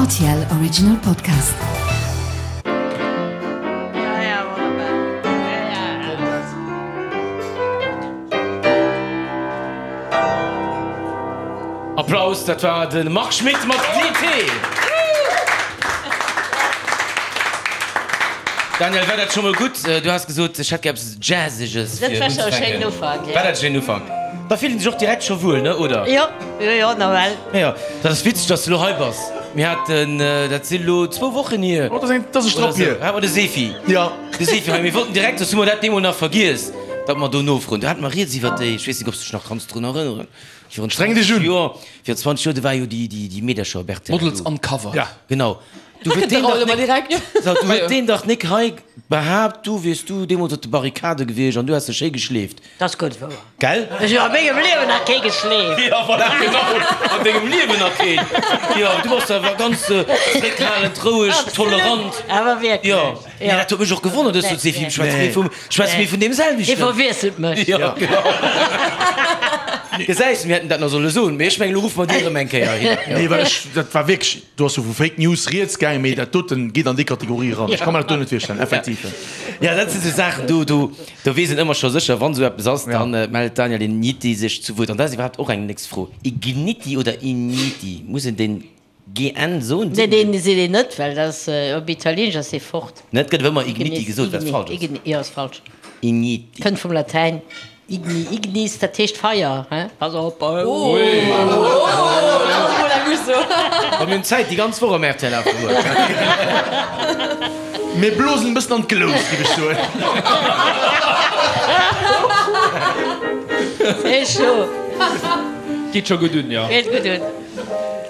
Rtl Original Podcast. Applaus, dat war de Marc Schmitt mat DT. Daniel, war dat scho mol gutt? Du has gesot, ech hätt gär eppes Jazzeges fir unzefänken. War dat e schéinen Ufank? Da fillt een sech och direkt scho wuel, ne, oder? Jo, jo, jo, nawell. Jo, dat ass witzeg, dass du elo hei bass. Mir haten, dat si lo zwou Wochen hier. Oh, dat ass e Strapp hier. Hate mer de Sefi. Jo. De Sefi hei. Mir wollten direkt, soss hu mer dat deemol nach vergiess, datt mer do nofroen. Do hate mer rieds iwwer déi, ech weess net, ob s du dech nach kanns drun erënneren, virun Streng dech 20 un. Joer, virun 20 Joer, do war jo déi, déi, déi Meedercher, Berthe. Models uncovered. Ja. Genau. Du huet deen dach nik, so, du huet deen dach nik hei behaapt, du wiers du deemools op de Barrikade gewiescht an du häss dech schéi geschleeft. Dat ass gutt wouer. Gell? Ech hunn a mengem Liewen nach kee geschleeft. Jo, voilà, genau, an dengem Liewen nach keen. Jo, du bass awer ganz zréckhalend, roueg, tolerant. Awer wierklech. Jo, mee dat huet mech och gewonnert, ech sot, Sefi, schwätze mir vum, schwätze mir vun deem selwechten? Hie verwiesselt mech. Jo, genau. Gesäis, mir hätten dat nach solle soen, mee ech mengen, elo ruffe mer déi erëm eng Kéier hin. Nee, well ech, dat war wierklech, do ass jo vu Fake News rieds gaangen, mee dat doten geet an déi Kategorie eran. Ech ka mer dat do net virstellen, effektiv. Jo, dat si sou Saachen, do, do. Do weess een ëmmer scho sécher, wann esou eppes ass, da mellt d'Daniel Igniti sech zu Wuert. An dat ass iwwerhaapt och eng nächst Fro, Igniti oder Igniti? Muss een den GN soen? Nee, deen seet een net, well dat ass, op Italieenesch ass dee fort. Net gëtt awer ëmmer Igniti gesot, wat falsch ass. Igni, jo, ass falsch. Igniti. Kënnt vum Latäin igni, ignis, dat heescht Feier, he? Pass op. A mir hunn Zäit déi ganz Woch am rtl Afterwork. Mir blosen e bëssen an d'Glous, géif ech soen. Sehr schön. Geet scho gutt un, jo. Geet gutt un.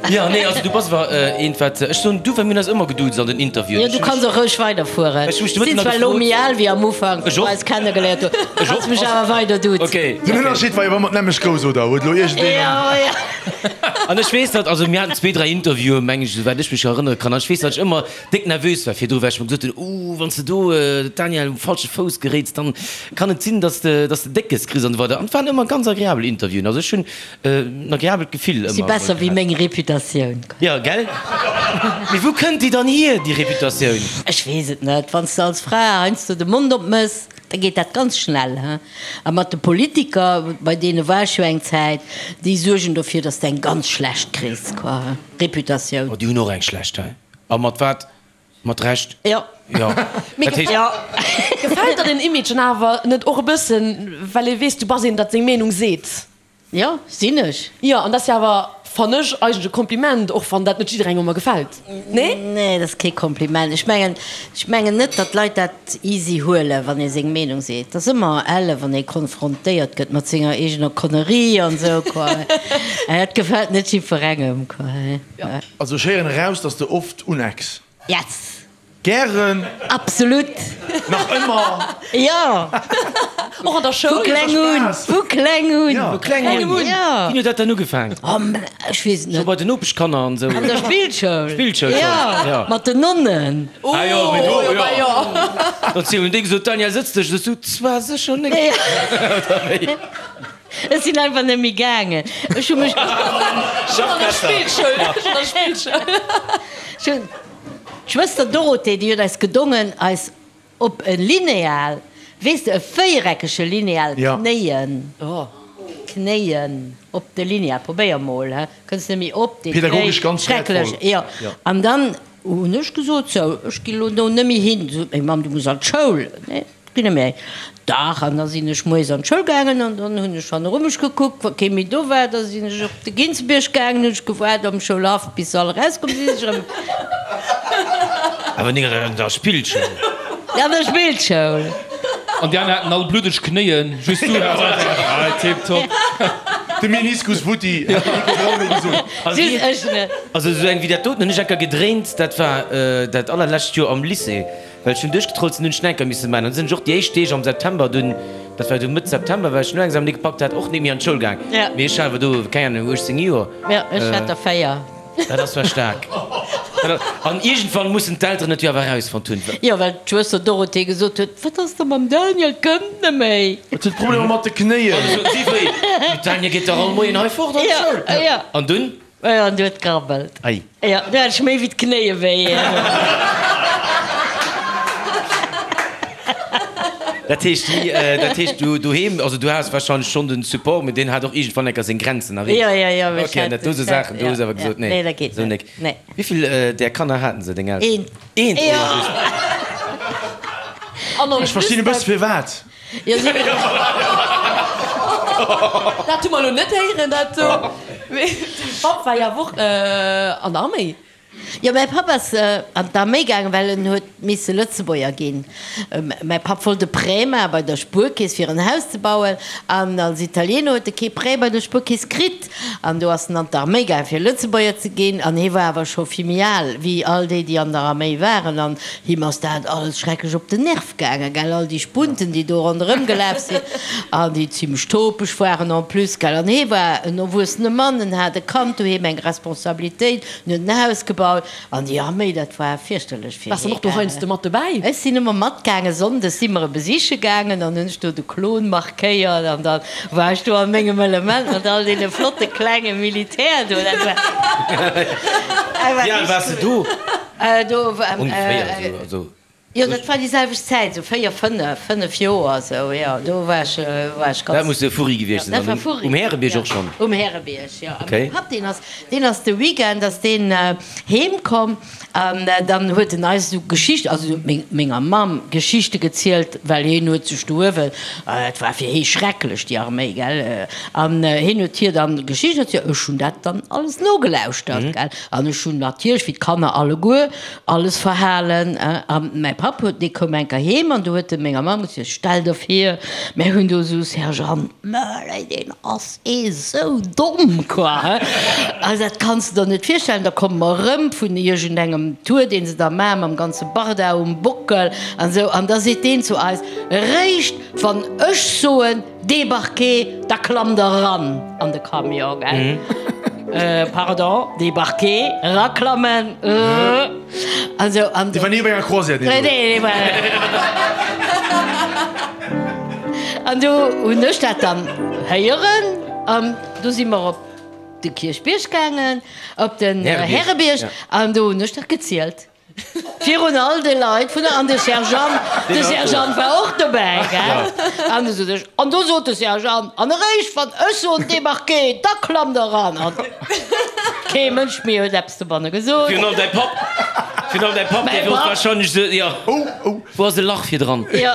Jo, nee, also du bass awer eent, wat ech soen, du, well mir hunn eis ëmmer geduuzt an den Interviewen. Jo, du kanns och roueg weiderfueren. Ech hu mech de Sinn Mëtten zwar elo méi al wéi am Ufank, Ech wou och. mer eis kennegeléiert hunn. Ech och. Kanns mech awer weider duzen. Okay. Den Ënnerscheed war jo, wa mer d'nämmlecht grouss, oder? Huet elo iergendeen Jo, an. jo. An ech weess, datt, also mir haten zwee, dräi Interviewen, meng ech, esouwäit ech mech erënnere kann, an ech weess, datt ech ëmmer déck nervös war virdru, well ech mer gesot hunn, Ooh, wann s de do d'Danièle um falsche Fouss geréits, dann kann et sinn, datt s de, datt s de Déckes kriss an esou weider. An et waren ëmmer ganz agreabel Interviewen. Also ech hunn en agreabelt Gefill Si ëmmer besser wéi gehat. meng Reputatioun. Jo, gell? Mee wou kënnt déi dann hier, déi Reputatioun? Ech weess et net. Wann s de als Fra heiansdo de Mond opmëss, da geet dat ganz schnell, he. A mat de Politiker, bei deene war ech jo eng Zäit, déi suergen dofir, datt s de eng ganz schlecht kriss, quoi, he, Reputatioun. Oh, déi hunn och eng schlecht, he? A mat wat? Mat Recht? Jo. Jo. Mee Dat heescht. Jo. Gefält der den Image dann awer net och e bëssen, well ee weess, du bass een, dat seng Meenung seet? Jo, sinn ech. Jo, an dat ass jo awer, fann ech, eigentlech e Kompliment, och wann dat net jidderengem ëmmer gefält. Nee? Nee, dat ass kee Kompliment. Ech mengen, ech mengen net, datt d'Leit dat easy huelen, wann ee seng Meenung seet. Et ass ëmmer elle, wann ee konfrontéiert gëtt mat senger eegener Connerie an esou, quoi. Dat gefält net jiddwerengem, quoi. Also ech héieren eraus, dass de oft unecks. Yes! Gären. Absolut! Nach ëmmer. Jo! Och an der Schoul. Vu kleng un! Vu kleng un! Vu kleng un? Jo! Wéini huet dat dann ugefaangen? Oh, ech weess et net. Scho bei den Nopeschkanner an esou? An der Spillschoul. Spillschoul schonn, jo. Mat den Nonnen. Ah jo, mee do, jo. Jo. Dann hunn déi gesot, Daniel, sëtz dech. Sot du, Zwar sécher net. Oder wéi? Ech sinn einfach net méi gaangen. Ech hu mech. Schonn an der Spillschoul. Schonn an der Spillschoul. Ech hunn. D'Schwëster Dorothee, déi huet eis gedongen, eis op e Lineal, weess de, e véiereckege Lineal knéien, knéien op de Lineal, probéier mol, he, kënns net méi op dee Knéi, Pädagogesch ganz schrecklech, wäertvoll. jo. An dann hunn ech gesot, sou, ech ginn elo do net méi hin. Sot meng Mamm, du muss an d'Schoul. Nee. Ginn net méi. Dach, an da sinn ech moies an d'Schoul gaangen an dann hunn ech hanneru mech gekuckt, wa kee méi do war. Da sinn ech op de Ginzebierg gaangen, hunn ech gewaart am Schoulhaff, bis se all erauskomm sinn, sinn ech erëm. Awer nik an der Spillschoul? An der Spillschoul. An déi aner haten all bluddeg Knéien, just du haas einfach, ah, tiptop. De Meniskus futti, hätt de Nico Braun elo gesot. Just ech net. Also esou eng wéi dat doten hunn ech enker gedréint, dat war dat allerlescht Joer am Lycée. Well ech hunn duerchgetrollt sinn, hunn ech Schnenker misse maachen. An du sinn ech och déi éischt Deeg am September dunn, dat war du Mëtt September, well ech no Examen ni gepackt hat, och net méi an d'Schoul gaang. Mee ech hat awer do, keng Ahnung, 18 Joer. Jo, ech hat der 4. Dat ass zwar staark. An iergendwann mussen d'Elteren et jo awer erausfonnt hunn. Jo, well d'Schwëster Dorothee gesot huet, Wat ass da mam Daniel, kënnt net méi. Et huet Problemer mat de Knéien. An du sot si, Wéi, de Daniel geet dach all Moien hei fort an d'Schoul. An dunn? An du huet grabbelt. Ei. Jo, du hat ech méi wéi d'Knéie wéi. Dat heescht, déi, dat heescht du doheem, also du has wahrscheinlech schonn den Support, mee deen hat och iergendwann enker seng Grenzen erreecht. Jo, jo, jo, mee ech Okay, an hat, dat do sou ech hat, Saachen, do hues ja, awer ja. gesot, nee, Nee, dat geet sou net. nek. Nee. Wéivill där Kanner haten se, deng Elteren? Eent. Eent? Jo. An en Ech verstinn e plus bësse firwat. Jo, si. Dat hu mer elo net héieren, dat do. Mee de Papp war jo awer och an der Arméi. Jo, mäi Papp ass an d'Arméi gaangen, well en huet misse Lëtzebuerger ginn. Mäi Papp wollt e Prêt maache bei der Spuerkeess, fir en Haus ze bauen, an als Italiener huet e kee Prêt bei der Spuerkeess kritt. An do ass en an d'Arméi gaangen, fir Lëtzebuerger ze ginn. An hie war awer scho vill méi al wéi all déi, déi an der Arméi waren. An him ass dat alles schrecklech op den Nerv gaangen, gell, all déi Spunten, déi do ronderëm gelaf sinn an déi zimlech topeg waren en plus, gell. An hie war en erwuessene Mann, en hat e Kand doheem, eng Responsabilitéit. En huet en Haus gebaut an déi Arméi, dat war fierchterlech fir Waars de och do heiansdo mat dobäi? Ech sinn ëmmer matgaangen. Sonndes si mer e besiche gaangen an hunn ech do de Klon markéiert an da war ech do a mengem Element mat all deene flotte klenge Militär do. Dat war, dat war Wéi al waars de do? Do war, Ongeféier esou, also. Jo, dat war déi selwecht Zäit, esou 4, 5, 5 Joer esou, jo, do war ech, war ech ganz. Dat muss de Furri gewiescht sinn, Dat war dann Furri. um Härebierg och schonn? Um Härebierg, jo. A Okay. mäi Papp, deen ass, deen ass de Weekend ass deen heem komm an dann huet en eis esou Geschichten, also meng, menger Mamm Geschichte gezielt, well hien huet sech do uewen, et war fir hie schrecklech, déi Arméi, gell, an hien huet hir dann Geschichten erzielt, ech hunn dat dann alles nogelauschtert, gell, an ech hunn natierlech, wéi d'Kanner alleguer, Alles verhalen. A mäi Papp huet, dee koum eng Kéier heem an du huet e menger Mamm gesot, Stell der vir, mär hunn do esou Sergeant Möller, deen ass ee sou domm, quoi, he. Also dat kanns de der net virstellen. Da komme mer erëm vun iergendengem Tour, deen se da maachen, mam ganze Barda um Bockel an esou, an da seet deen zu eis, Réischt wann ech soen, Débarquer, da klammt der eran an de Camion, gell? Pardon, débarquer, eraklammen, also an. Déi war ni op enger Croisière, déi do. An do hunn ech dat dann héieren an du si mer op de Kierchbierg gaangen, op den Härebierg, an do hunn ech dat gezielt. Virun all de Leit vun der, an de Sergeant, de Sergeant war och dobäi, gell? An du sot ech, an do sot de Sergeant, an eréischt wann ech soen débarquez, da klammt der eran. An kee Mënsch méi huet eppes dobanne gesot. Virun allem däi Papp, virun allem däi Papp, dee wor wahrscheinlech esou, jo, wou ass e Lach virdran? Jo.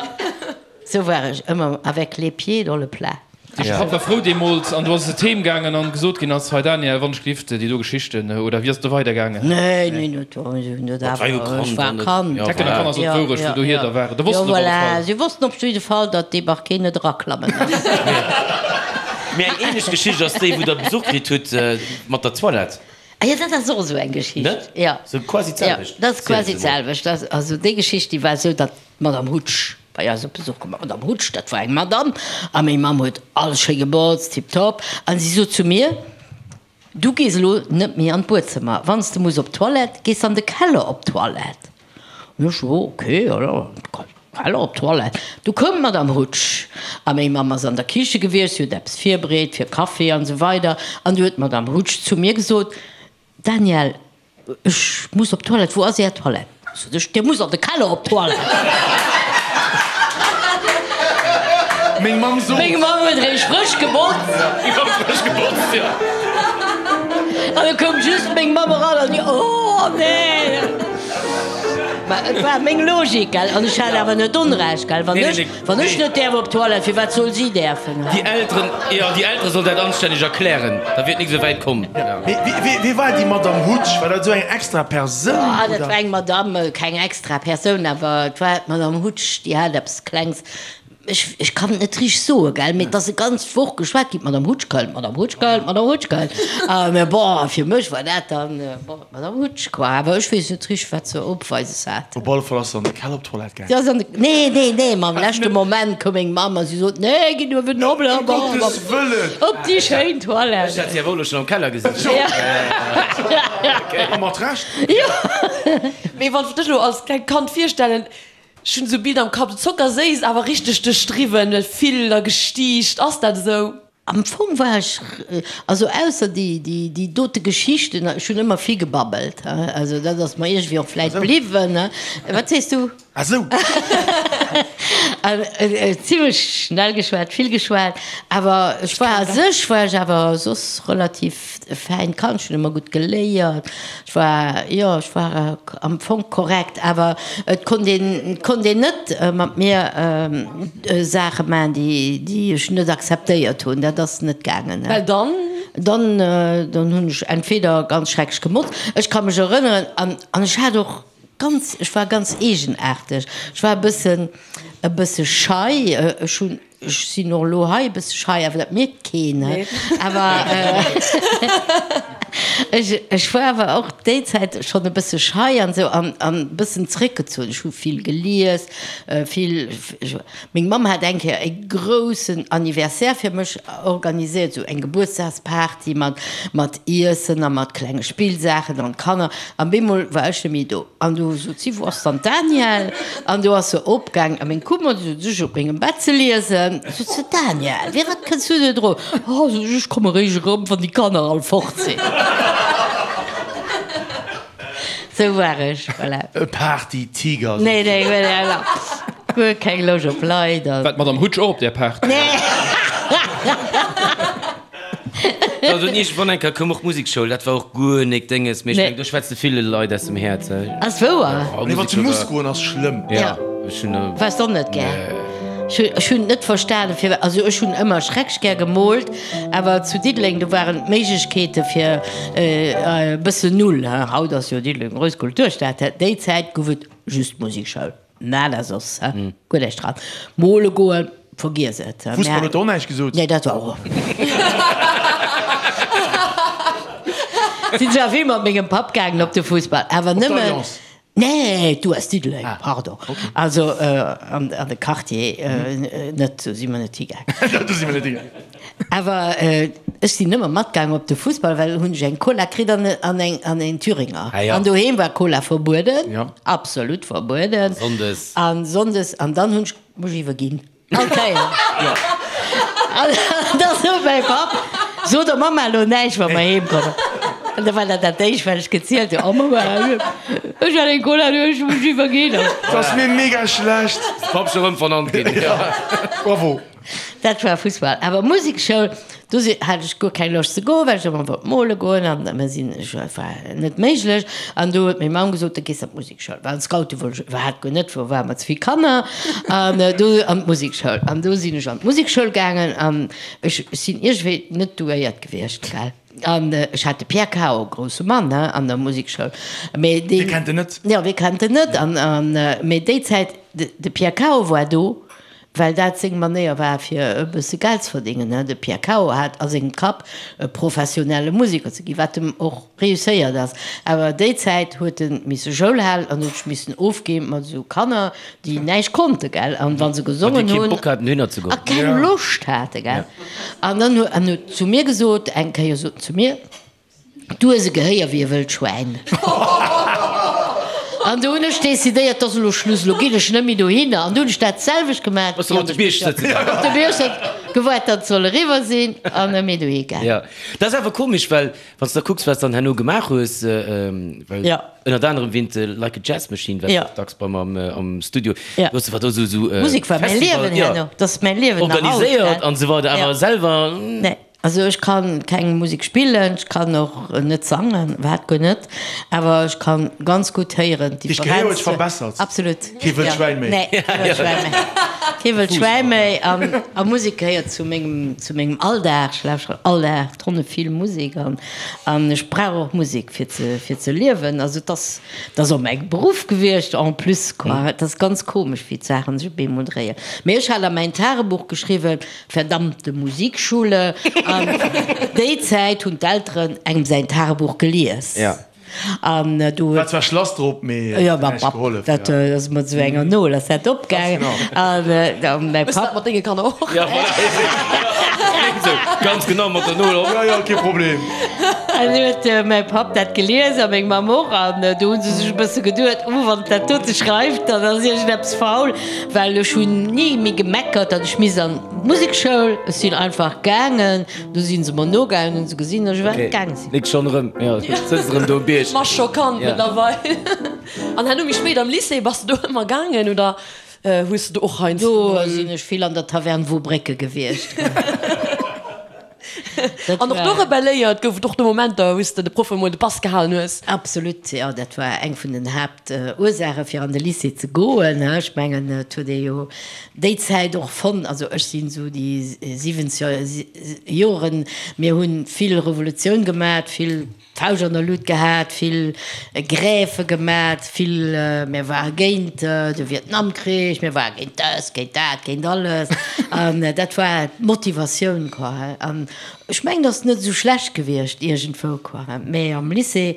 Sou war ech ëmmer avec les pieds dans le plat. Dee Papp war frou deemools an du ass et heem gaangen an gesot ginn ass, Hei Daniel, wann ech gelift, déi do Geschichten, oder wéi ass et do weider gaangen? Nee, nee, net do, si hunn dat awer, ech war Kand. D'Hecken a Kanner soten d'Wourecht, wou dohier da waren, da wossten Jo, op alle voilà, Fall. si wossten op jidde Fall, datt dee Barquet net eraklammen ass. Mee eng ähnlech Geschicht ass déi, wou der Besuch kritt hutt mat der Toilette. Ah jo, dat ass och esou eng Geschicht. Net? Jo. Sou quasi d'selwecht. Jo, dat ass quasi d'selwecht. Also déi Geschicht, déi war esou, datt D'Madame Hutsch bei eis op Besuch komm. D'Madame Hutsch, dat war eng Madame, a meng Mamm huet alles schéi gebotzt, tiptop. A si sot zu mir, Du gees elo net méi an d'Buedzëmmer. Wann s de muss op d'Toilette, gees an de Keller op d'Toilette. An ech, Jo, okay, jo, jo, Keller op d'Toilette. Du koum d'Madame Hutsch, a meng Mamm ass an der Kiche gewiescht, si huet eppes virbereet fir Kaffi an esou weider. An du huet d'Madame Hutsch zu mir gesot, Daniel, Ech muss op d'Toilette, wou ass Är Toilette? Sot ech, Dir musst an de Keller op d'Toilette. Meng Mamm sot. Meng Mamm huet eréischt frësch gebotzt. Jo, frësch gebotzt, jo. An da koum just meng Mamm eran an déi, Oh nee! Mä et war meng Logik, gell? An ech hat awer net Onrecht, gell? Wann ech, wann ech net däerf op d'Toilette, firwat soll si däerfen? Déi Elteren, jo, déi Eltere sollen dat anstänneg erklären, da wier et nik esou wäit komm. Mee wie war déi Madame Hutsch? War dat esou eng extra Persoun, Ah, dat oder? war eng Madame, keng extra Persoun, awer et war d'Madame Hutsch, déi hat eppes Klengs, ech, ech kann et net richteg soen, gell, mee et ass e ganz Woch geschwat ginn, d'Madame Hutsch kënnt, d'Madame Hutsch kënnt, d'Madame Hutsch kënnt. A mä bon, fir mech war dat dann, bon, d'Madame Hutsch, quoi. Awer ech weess net richteg, wat se opweises hat. Op alle Fall ass se an de Keller op d'Toilette gaangen. Si ass an de, nee, nee, nee, ma am leschte Moment koum meng Mamm a si sot, nee, ginn uewen op, Ëm Gottes Wëllen! op déi schéin Toilette. Ech hat si awer och elo schonn am Keller gesinn. A mat Recht! Jo. Mee wann ech dech elo als klengt Kand virstellen, ech hunn esou Bild am Kapp, zockerséiss, awer richteg duerchdriwwen, vill a gestiicht. Ass dat esou? Am Fong war ech, also ausser déi, déi, déi dote Geschichten, ech hunn ëmmer vill gebabbelt, also dat ass mer iergendwéi och vläit bliwwen. Wat sees du? Ah sou! An zimlech schnell geschwat, vill geschwat, awer ech war a sech war ech awer soss relativ e fäint Kand, ech hunn ëmmer gutt geléiert, ech war, jo, ech war am Fong korrekt, awer et konnt een, et konnt een net mat mir Saache maachen, déi, déi ech net akzeptéiert hunn, dat ass net gaangen. Well dann? Dann, dann hunn ech entweder ganz schrecklech gemotzt, ech ka mech erënneren, an, an ech hat och ganz, ech war ganz eegenaarteg, ech war e bëssen, e bësse schei, ech hunn. Ech sinn och elo hei e bësse schei, awer dat mierkt keen. Awer ech, ech war awer och déi Zäit schonn e bësse schei an esou an, an e bëssen zréckgezunn. Ech hu vill gelies, vill, meng Mamm hat eng Kéier e groussen Anniversaire fir mech organiséiert, esou eng Gebuertsdagsparty mat, mat Iessen a mat klenge Spillsaachen an d'Kanner. An bemol war ech net méi do. An du sot si, Wou ass dann d'Danièle? An du ass se opgaang a meng Kummer, du sot ech, op mengem Bett ze liesen. Sot se, Danièle, firwat kënns du net erop? Oh, sot ech, ech komme réischt erëm, wann déi Kanner all fort sinn. Sou war ech, voilà. E Party-Tiger, sot Nee, nee, voilà. Guer keng Loscht op Leit. War d'Madame Hutsch och op där Party? Nee. Also iergendwann eng Kéier koum och d'Musekschoul, dat war och guer nik Dénges, mee ech mengen do schwätz de ville Leit aus dem Häerz. Ass wouer. Nee, wann se muss goen ass schlëmm. Ja, ech hunn. Waars de och net gär? Nee. Ech hunn net verstanen firwat, also ech hunn ëmmer schrecklech gär gemoolt, awer zu Diddeleng do waren d'Méiglechkeete fir e bëssen null. Haut ass jo Diddeleng grouss Kulturstad, déi Zäit gouf et just d'Musekschoul. Nada soss, hä? Guer näischt dran. Mole goen, vergiess et. Fussball huet der och näischt gesot? Nee, dat war och. Sinn zwar vill mat mengem Papp gaangen op de Fussball, awer Op nëmmen. d'Alliance? Nee, d'US Diddeleng, pardon. Also an de Quartier net, do si mer net higaangen. Do si mer net higaangen. Awer ech sinn ëmmer matgaangen op de Fussball, well hunn ech eng Cola kritt an an eng an een Thüringer. Ah ja. An doheem war Cola verbueden, Ja. absolut verbueden. Sonndes. An sonndes, an dann hunn ech mech iwwerginn. All Kéier. Ja. An da sot mäi Papp, So der Mamma elo näischt, wa mer heem kommen. An da war dat dat éischt, wat ech gezielt hunn, Oh Mamma, ech hat eng Cola, du ech hu mech iwwerginn. Et ass mir mega schlecht. Papp scho rëm vernannt ginn. Ja. Bravo. Dat war Fussball. Awer Musekschoul, do si hat ech guer keng Loscht ze goen, well ech ëmmer wollt mole goen an mer sinn, ech war net méiglech. An do huet meng Mamm gesot, da gees an d'Musekschoul. Well an d'Scoute wollt ech iwwerhaapt guer net, wou ware mer ze vill Kanner. An do an d'Musekschoul. An do sinn ech an d'Musekschoul gaangen an ech sinn iergendwéi net douéiert gewiescht, gell. An ech hat de Pierre Cao, grousse Mann, he, an der Musekschoul. Mee deen. Wie kennt en net? Jo, wie kennt en net? An, an, mee déi Zäit, de, de Pierre Cao war do. Well dat seng Manéier war fir e bësse Geld ze verdéngen. De Pierre Cao hat a sengem Kapp e professionelle Museker ze ginn, wat em och reusséiert ass. Awer déi Zäit huet e misse Schoul halen an huet sech missen ofgi mat esou Kanner, déi näischt konnte, gell, an wa se gesongen hunn. A keng Loscht hate, gell. An dann huet en zu mir gesot, eng Kéier sot en zu mir, Du hues e Gehéier wéi e wëllt Schwäin. An du hunn ech decidéiert, 't ass elo Schluss, elo ginn ech net méi dohinner. An du hunn ech dat selwecht gemaach. Bass du op de Bierg sëtze gaangen? Op de Bierg sëtzen, gewaart, datt et soll eriwwer sinn, an net méi dohi gaangen. Jo, dat ass awer komesch, well wann s de da kucks, wat s dann herno gemaach hues, well ënnert anerem wéint Like a Jazz Machine waars du och dacks bei mer am Studio, du hues awer do esou esou Musek war mäi Liewen herno, dat ass mäi Liewen nach haut, organiséiert an esou weider, awer selwer. Nee. Also ech kann keng Musek spillen, ech kann och net sangen, iwwerhaapt guer net, awer ech kann ganz gutt héieren Dech Gehéier huet sech verbessert. Absolut. Kee wëllt Schwäin méi. Nee, kee wëllt Schwäin méi. Kee wëllt Schwäin méi an a Musek gehéiert zu mengem, zu mengem Alldag. Ech lauschteren all Dag tonne vill Musek an an ech brauch och Musek fir ze fir ze liewen. Also et ass, et ass och mäi Beruff gewiescht en plus quoi. Et ass ganz komesch wéi d'Saachen sech op eemol dréien. Mee ech hat a mäin Tagebuch geschriwwen, Verdammte Musikschule! An déi Zäit hunn d'Elteren engem säin Tagebuch gelies. An do War huet. zwar Schlass drop, mee Jo, huet mam näischt Papp, gehollef. dat ass mat esou enger Nol ass dat opgaangen. Ganz genau. An mäi Hues du dat Papp. mat denge Kanner och? Ja, voilà. Ganz genau, mat der Nol op. Jo, jo, kee Problem. An huet mäi Papp dat gelies a meng Mamm och. An do hu se sech e bësse geduet, Oh, wann dat dote schreift, dann ass iergendeppes faul. Well ech hunn ni méi gemeckert, datt ech misst an d'Musekschoul. Ech sinn einfach gaangen. Du si se mer nogaangen, hunn se gesinn, datt ech iwwerhaapt gaange sinn. Nik schonn erëm, jo, sëtzt erëm do um Bierg. Ma scho Kand mëttlerweil. An herno méi spéit am Lycée, bass de do ëmmer gaangen oder hues de do och heiansdo Do mol. sinn ech vill an der Taverne Wobrécke gewiescht. An och do rebelléiert? Gouf et och do Momenter, wou s de de Proffe mol de Pass gehalen hues? Absolut, jo, dat war eng vun den Haaptursaache fir an de Lycée ze goen. Ech mengen, et huet ee jo déi Zäit och fonnt, also ech sinn esou déi 70er Joren, mir hu vill Revolutioun gemat, vill D'Fauscht an der Lut gehat, vill Grève gemat, vill, mir ware géint de Vietnamkrich, mir ware géint dëst, géint dat, géint alles. An dat war d'Motivatioun, quoi. An ech mengen, dat ass net esou schlecht gewiescht iergendwou, quoi. Mä am Lycée,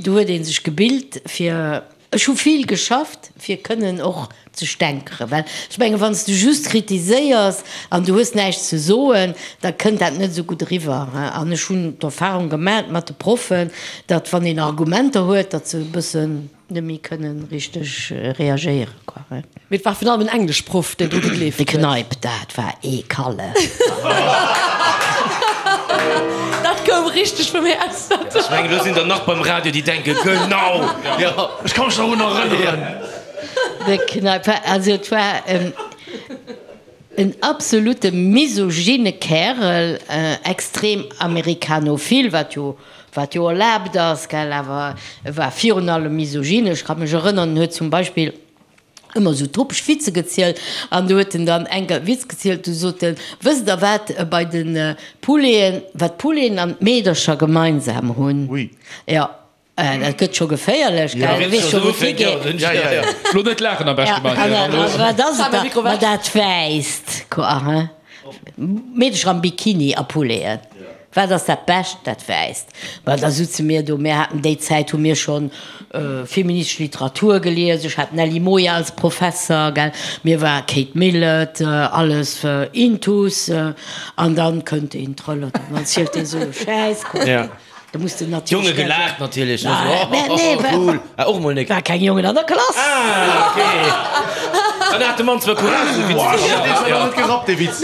do huet ee sech gebilt fir. Ech hu vill geschafft, fir kënnen och ze stänkeren, well ech mengen, wann s de just kritiséiers an du hues näischt ze soen, da kënnt dat net esou gutt eriwwer. An ech hunn d'Erfahrung gemat mat de Proffen, datt wann een Argumenter huet, datt se e bëssen net méi kënnen richteg reagéieren, quoi. Mee et war virun allem en Engleschproff, deen dru gegleeft De huet. Kneip, dat war ee Kallef. Dat koum richteg vum Häerz. Ech mengen, elo sinn der nach beim Radio, déi denken, Genau! Jo. Ech ka mech nach drun erënneren. De Kneip war, also et war en absolute misogyne Kärel, extrem amerikanophil, wat jo, wat jo erlaabt ass, gell, awer e war virun allem misogyne. Ech ka mech erënnern, en huet zum Beispill ëmmer esou topeg Witze gezielt an do huet en dann eng Witz gezielt, du sot en, wësst der wat bei de Pouleten, wat d'Pouleten an d'Meedercher gemeinsam hunn? Ui. Jo, dat gëtt scho geféierlech, gell, du weess scho wou et higeet. Ja, ja, ja. Lo net laachen am beschte, Manuel. Wat ass et da? Ma dat Wäisst, quoi, hein? Meedercher am Bikini a Pouleten. Wat ass dat Bescht? Dat Wäisst. Ma da sutze mir do, mir haten déi Zäit hu mir schonn feministesch Literatur gelies, ech hat d'Nelly Moia als Professer, gell, mir war Kate Millett, alles intus, an dann kënnt een trëllert an dann zielt dee sou e Schäiss. Da muss de natierlech. D'Jonge gelaacht natierlech, ne? Sou, oh, oh, cool. Ah, och mol nek. War keng Jongen an der Klass. Ah, okay. Dann hat de Mann zwar Courage, esou Witz ze Boah, deen huet awer net gerappt, dee Witz.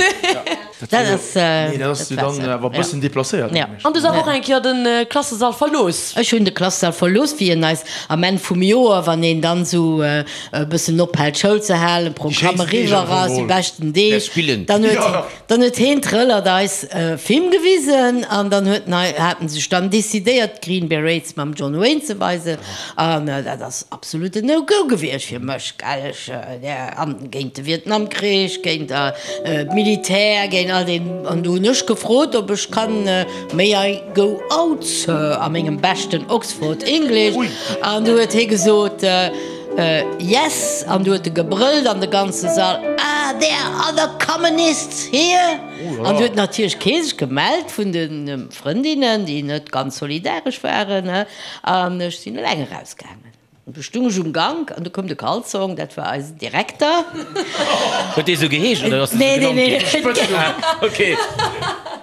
Dat ass. Nee, dat ass jo dann awer e bëssen deplacéiert. Ja. An du hues awer och eng Kéier de Klassesall verlooss. Ech hunn de Klassesall verlooss, wéi en eis am Enn vum Joer, wann een dann esou e bëssen ophält Schoul ze halen, Programm eriwwer ass, déi beschten Deeg, dann huet. Dann huet heen Trëllert eis e Film gewisen an dann huet en, haten sech dann decidéiert d'Green Berets mam John Wayne ze weisen an dat ass absolut en No-Go gewiescht fir mech, gell, ech an géint de Vietnamkrich, géint d'Militär, géint all deen an do hunn ech gefrot ob ech kann May I go out, Sir a mengem beschten Oxford English an du huet hee gesot Yes an du huet e gebrëllt an de ganze Sall, Are there other communists here? An du huet natierlech kee sech gemellt vun de Frëndinnen, déi net ganz solidaresch waren, an ech sinn eleng erausgaangen. An du stung ech um Gank an du koum de Kalzong, dat war eisen Direkter. Huet dee sou geheescht oder ass dee sou genannt ginn? Okay.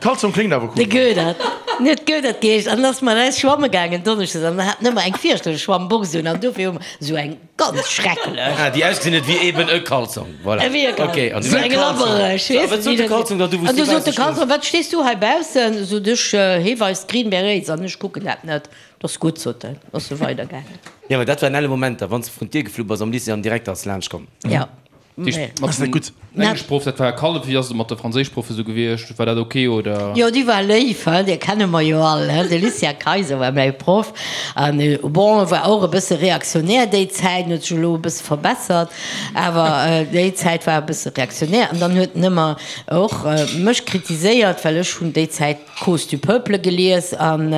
Kalzong kléngt awer cool. De Goedert. En huet Goedert geheescht an ass mat eis schwamme gaangen donneschdes an hat nëmmer eng fierchterlech Schwammbox un an dofir hu mer esou eng ganz schrecklech. Ah, déi ausgesinn huet wéi eben e Kalzong, voilà. Ewéi e Kalzong. Okay, an du. Esou eng labbereg, weess Wat sot de Kalzong dann du, wou s An du du sot de bausse Kalzong, stoungs? Wat stees du hei baussen? Sot ech, hee weist Green Berets an ech kucken dat net. 't ass gutt, sot en, ass e weidergaangen. Jo, mä dat waren elle Momenter, wann s de vrun d'Dier geflu bass am Lycée an direkt ass laanscht komm. Jo. Mat dem Engleschproff, dat war Kallef, wéi ass et mat de Franséischproffe sou gewiescht? War dat ok oder? Jo, déi war léif, hein, déi kenne mer jo all, hein. De Lucien Kayser war mäi Proff an bon, e war och e bësse reaktionär déi Zäit, en huet sech elo e bësse verbessert, awer déi Zäit war e bësse reaktionär an dann huet en ëmmer och mech kritiséiert, well ech hunn déi Zäit Cause du peuple gelies an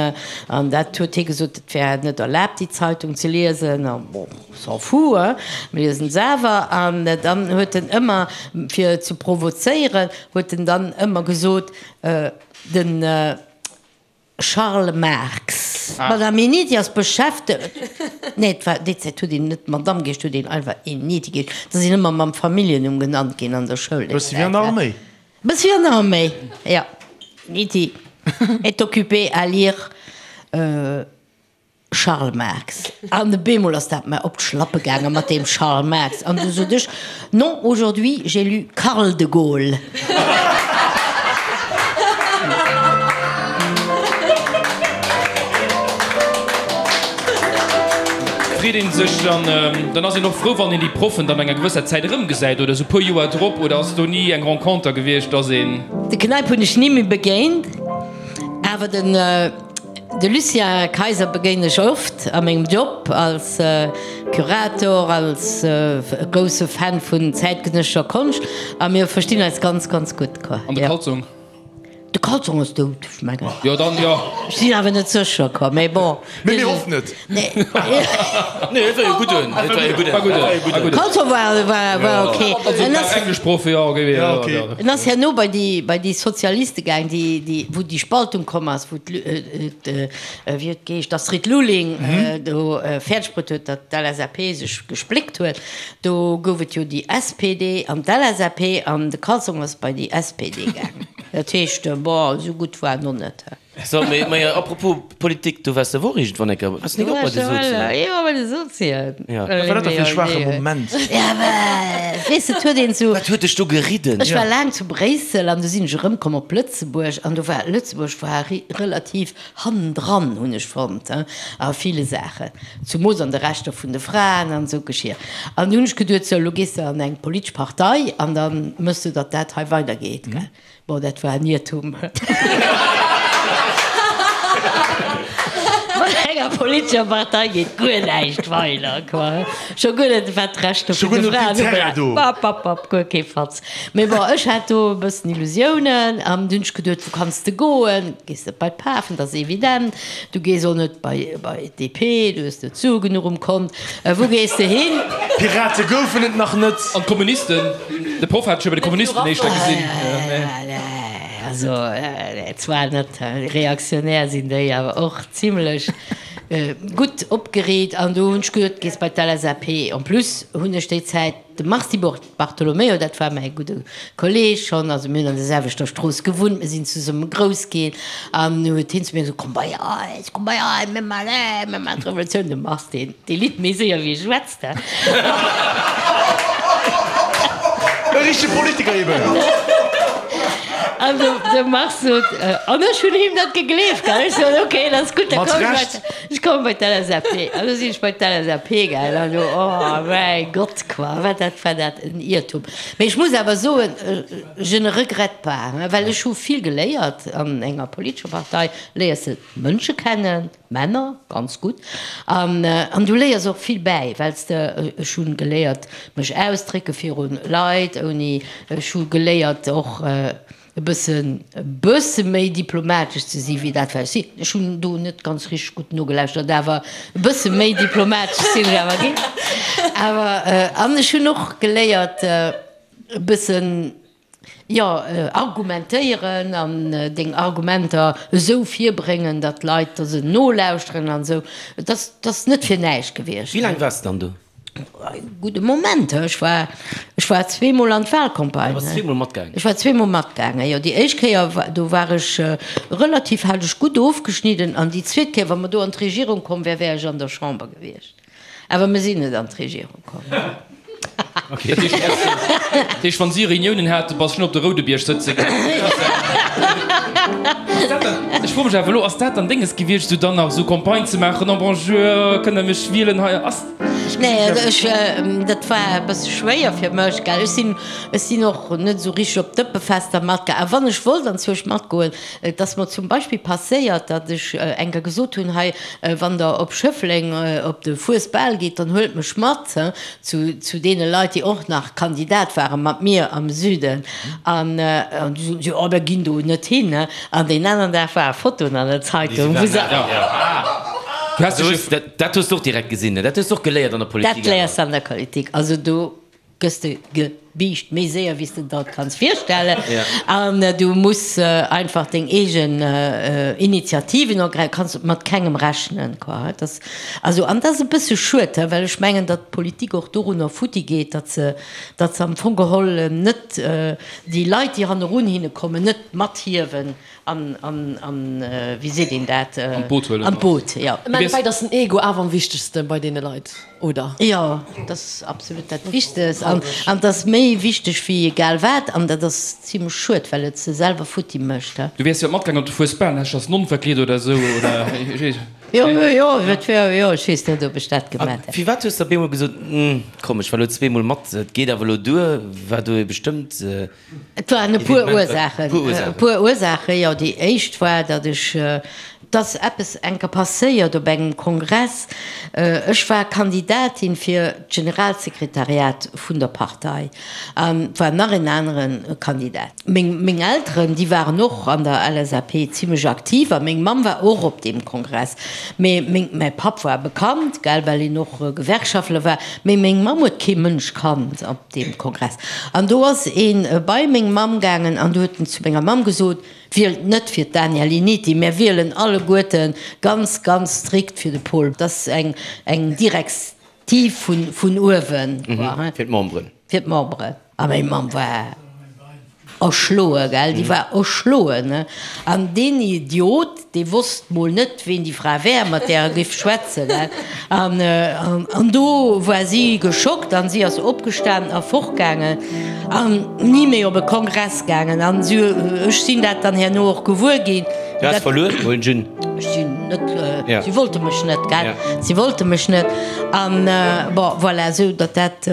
an dat huet hie gesot, et wär net erlaabt déi Zeitung ze liesen a bon. S'en fout, hein, mir liesen se awer. An dann huet en ëmmer, fir ze provozéieren, huet en dann ëmmer gesot, de Charles Marx. D'Madame Eniti ass beschäftegt, nee, et war, déi Zäit huet een net Madame geheescht, huet een einfach Eniti geheescht. Da sinn ëmmer mam Familljennumm genannt ginn an der Schoul déi Bëssi wéi an der Zäit. Arméi. Bëssi wéi an der Arméi, jo. Eniti est occupée à lire. Charles Marx. An e bemol ass dat mer op d'Schlappe gaange mat deem Charles Marx. An du sot ech, Non, aujourd'hui j'ai lu Karl de Gaulle. Freet een sech dann, dann ass een och frou, wann een déi Proffen dann no enger gewësser Zäit erëmgesäit oder esou e puer Joer drop, oder ass do ni eng Renconter gewiescht, dass een. De Kneip hunn ech ni méi begéint, awer den. De Lucien Kayser begéinen ech oft a mengem Job als Curator, als grousse Fan vun zäitgenëssescher Konscht a mir verstinn eis ganz, ganz gutt. An de Kalzong? De Kalzong ass dout, ech mengen. Jo, dann jo. Ech sinn awer net sécher, quoi, mee bon. Mee mir hoffen et. Nee. Nee, et war jo gudden. Et war jo gudden. War gudden. War gudden. Kalzong war, war, war ok. Also, En ass. Engleschproff, jo, ok. Ja, ok. En ass herno bei déi, bei déi Sozialiste gaang, déi, déi, wou déi Spaltung komm ass, wou d'Lu, wéi huet geheescht, d'Astrid Lulling do fäerdeg bruet huet, datt d'LSAP sech gespléckt huet. Do gouf et jo déi SPD an d'LSAP an de Cazong ass bei déi SPD gaangen. Dat heescht, bon, esou gutt war en och net. So, mee, mee apropos Politik, du waars der wor iergendwann eng Kéier, waars de nik och bei de Sozien? Jo, bei de Sozien. Ja. Wat war dat da fir e schwaache Moment? Ja, mä weess de, et huet een sou. Wat huet dech do geridden? Ech war laang zu Bréissel an du sinn ech erëmkomm op Lëtzebuerg an do war Lëtzebuerg war relativ hannendran, hunn ech fonnt, a ville Saachen, zumoos an de Rechter vun de Fraen an esou Geschier. An du hunn ech geduet, sou, elo gees de an eng politesch Partei an da méchs de, datt dat hei weidergeet, gell. Bon, dat war en Iertum. Mat enger politescher Partei geet guer näischt weider, quoi. Scho guer net wat d'Rechter vun de Fraen ubelaangt. Bap, bap, bap, guer kee Fatz. Mee bon, ech hat do e bëssen Illusiounen an dunn hunn ech geduet, wou kanns de goen? Gees net bei d'Pafen, dat ass evident. Du gees och net bei bei d'DP, du hues net Sue genuch um Kont. Wou gees de hin? Pirate goufen et nach net. An d'Kommunisten? De Proff hat ech jo bei de Kommunisten éischter gesinn. Also zwar net reaktionär sinn déi, awer och zimlech gutt opgereet. An do hunn ech geduet, gees bei d'LSAP. En plus hunn ech déi Zäit de Mars Di Bartolomeo, dat war mäi gudde Kolleeg schonn, also mir hunn an der selwechter Strooss gewunnt, mir sinn zesumme grouss ginn. An du huet hien zu mir gesot, komm bei eis, komm bei eis, mir maachen, mir maachen d'Revolutioun. De Mars, deen, dee litt méi séier wéi e schwätzt. E richtege Politiker eben. An de, de Mars sot, an ech hunn him dat gegleeft, gell. Ech sot, ok, dat ass gutt, da Mat komm ech bei, Recht. ech komme bei d'LSAP. An du sinn ech bei d'LSAP gaangen an du, oh mäi Gott, quoi, wat dat war dat en Iertum. Mee ech muss awer soen, je ne regrette pas, well ech hu vill geléiert an enger politescher Partei, léiers de Mënsche kennen, Männer, ganz gutt. An, an du léiers och vill bäi, well s de, ech hu geléiert mech ausdrécke viru Leit, ouni, ech hu geléiert och e bëssen, e bësse méi diplomatesch ze si wéi dat wat ech sinn. Ech hunn do net ganz richteg gutt nogelauschtert, awer e bësse méi diplomatesch sinn ech awer ginn. Awer, an ech hunn och geléiert e bëssen, Jo, argumentéieren an deng Argumenter esou virbréngen, datt d'Leit der se nolauschteren an esou. Et ass, et ass net fir näischt gewiescht. Wéi laang waars de dann do? E gudde Moment. Ech war, ech war zweemol an d'Wahlcampagne. Du bass zweemol matgaangen? Ech war zweemol matgaangen, jo. Déi éischt Kéier, do war ech relativ, hat ech gutt ofgeschnidden an déi zweet Kéier, wa mer do an d'Regierung komm wäre, wär ech an der Chamber gewiescht. Awer mir sinn net an d'Regierung komm. Dat heescht, wann si Reuniounen haten, bass du op de Roudebierg sëtze gaangen? Ech froe mech awer elo, ass dat dann Dénges gewiescht, esou dann nach esou Campagne ze maachen, oh bonjour, kënnt der mech wielen hei? Ass. Nee, ech, dat war e bësse schwéier fir mech, gell. Ech sinn, ech sinn och net esou richteg op Dëppefester matgaangen. A wann ech wollt anzwousch matgoen, Et ass mer zum Beispill passéiert, datt ech eng Kéier gesot hunn, hei, wann Der op Schëffleng op de Fuesbal gitt, dann huelt mech mat zu deene Leit, déi och nach Kandidat ware mat mir am Süden. An du soten si, oh, mir ginn do net hin. An deen aneren Dag ware Fotoen an der Zeitung, wou se. Dat hues de och direkt gesinn, dat hues de och geléiert an der Politik. Dat léiers de an der Politik. Also do gëss de ge. Biischt méi séier wéi s de der et kanns virstellen. An du muss einfach deng eegen Initiativen ergräifen, kanns mat kengem rechnen, quoi. Dat ass, also, an dat ass e bësse schued, well ech mengen, datt d'Politik och dorunner futti geet, datt se, datt se am Fong geholl net déi Leit, déi hannerun hinne kommen, net mathiewen An, an, an, wéi seet een dat? An d'Boot huelen. An d'Boot, jo. Am Endeffekt ass den Ego awer am wichtegste bei deene Leit, oder? Jo, dat ass absolut dat Wichtegst. An, an dat ass méi wichteg wéi egal wat. An dat ass zimlech schued, well et se selwer futti mécht. Du wäers jo matgaangen op de Fuesbal, häss dech als Nonn verkleet oder esou, oder? Jo, jo, et wär, jo, ech weess net, ob ech dat gemaat hätt. Firwat hues de op eemol gesot, Komm, ech war elo zweemol mat, et geet awer elo duer? War do ee bestëmmt. Et waren e puer Ursaachen. E puer Ursaachen, jo. Déi éischt war, datt ech, et ass eppes enker passéiert op engem Kongress. Ech war Kandidatin fir d'Generalsekretariat vun der Partei an et war nach en anere Kandidat. Meng, meng Elteren, déi waren och an der LSAP zimlech aktiv a meng Mamm war och op deem Kongress. Mee meng, mäi Papp war bekannt, gell, well en och Gewerkschaftler war, mee meng Mamm huet kee Mënsch kannt. Deem Kongress. An do ass ee bei meng Mamm gaangen an du huet en zu menger Mamm gesot, Wielt net fir d'Danièle Initi, mär wielen alleguerte ganz, ganz strikt fir de Paul. Dat ass eng, eng Direktiv vun, vun uewen, quoi, Fir d'Memberen. Fir d'Memberen. A meng Mamm war erschloe, gell, déi war erschloen, ne. An deen Idiot, dee wosst mol net, ween déi Fra wär, mat där e giff schwätzen, gell. An, an do war si geschockt an si ass opgestanen a fortgaangen an ni méi op e Kongress gaangen. An si, ech sinn dat dann herno och gewuer ginn. Du has verluer, huelen ech un. Ech sinn net, si wollte mech net, gell. Si wollte mech net. An, bon, voilà, esou datt dat,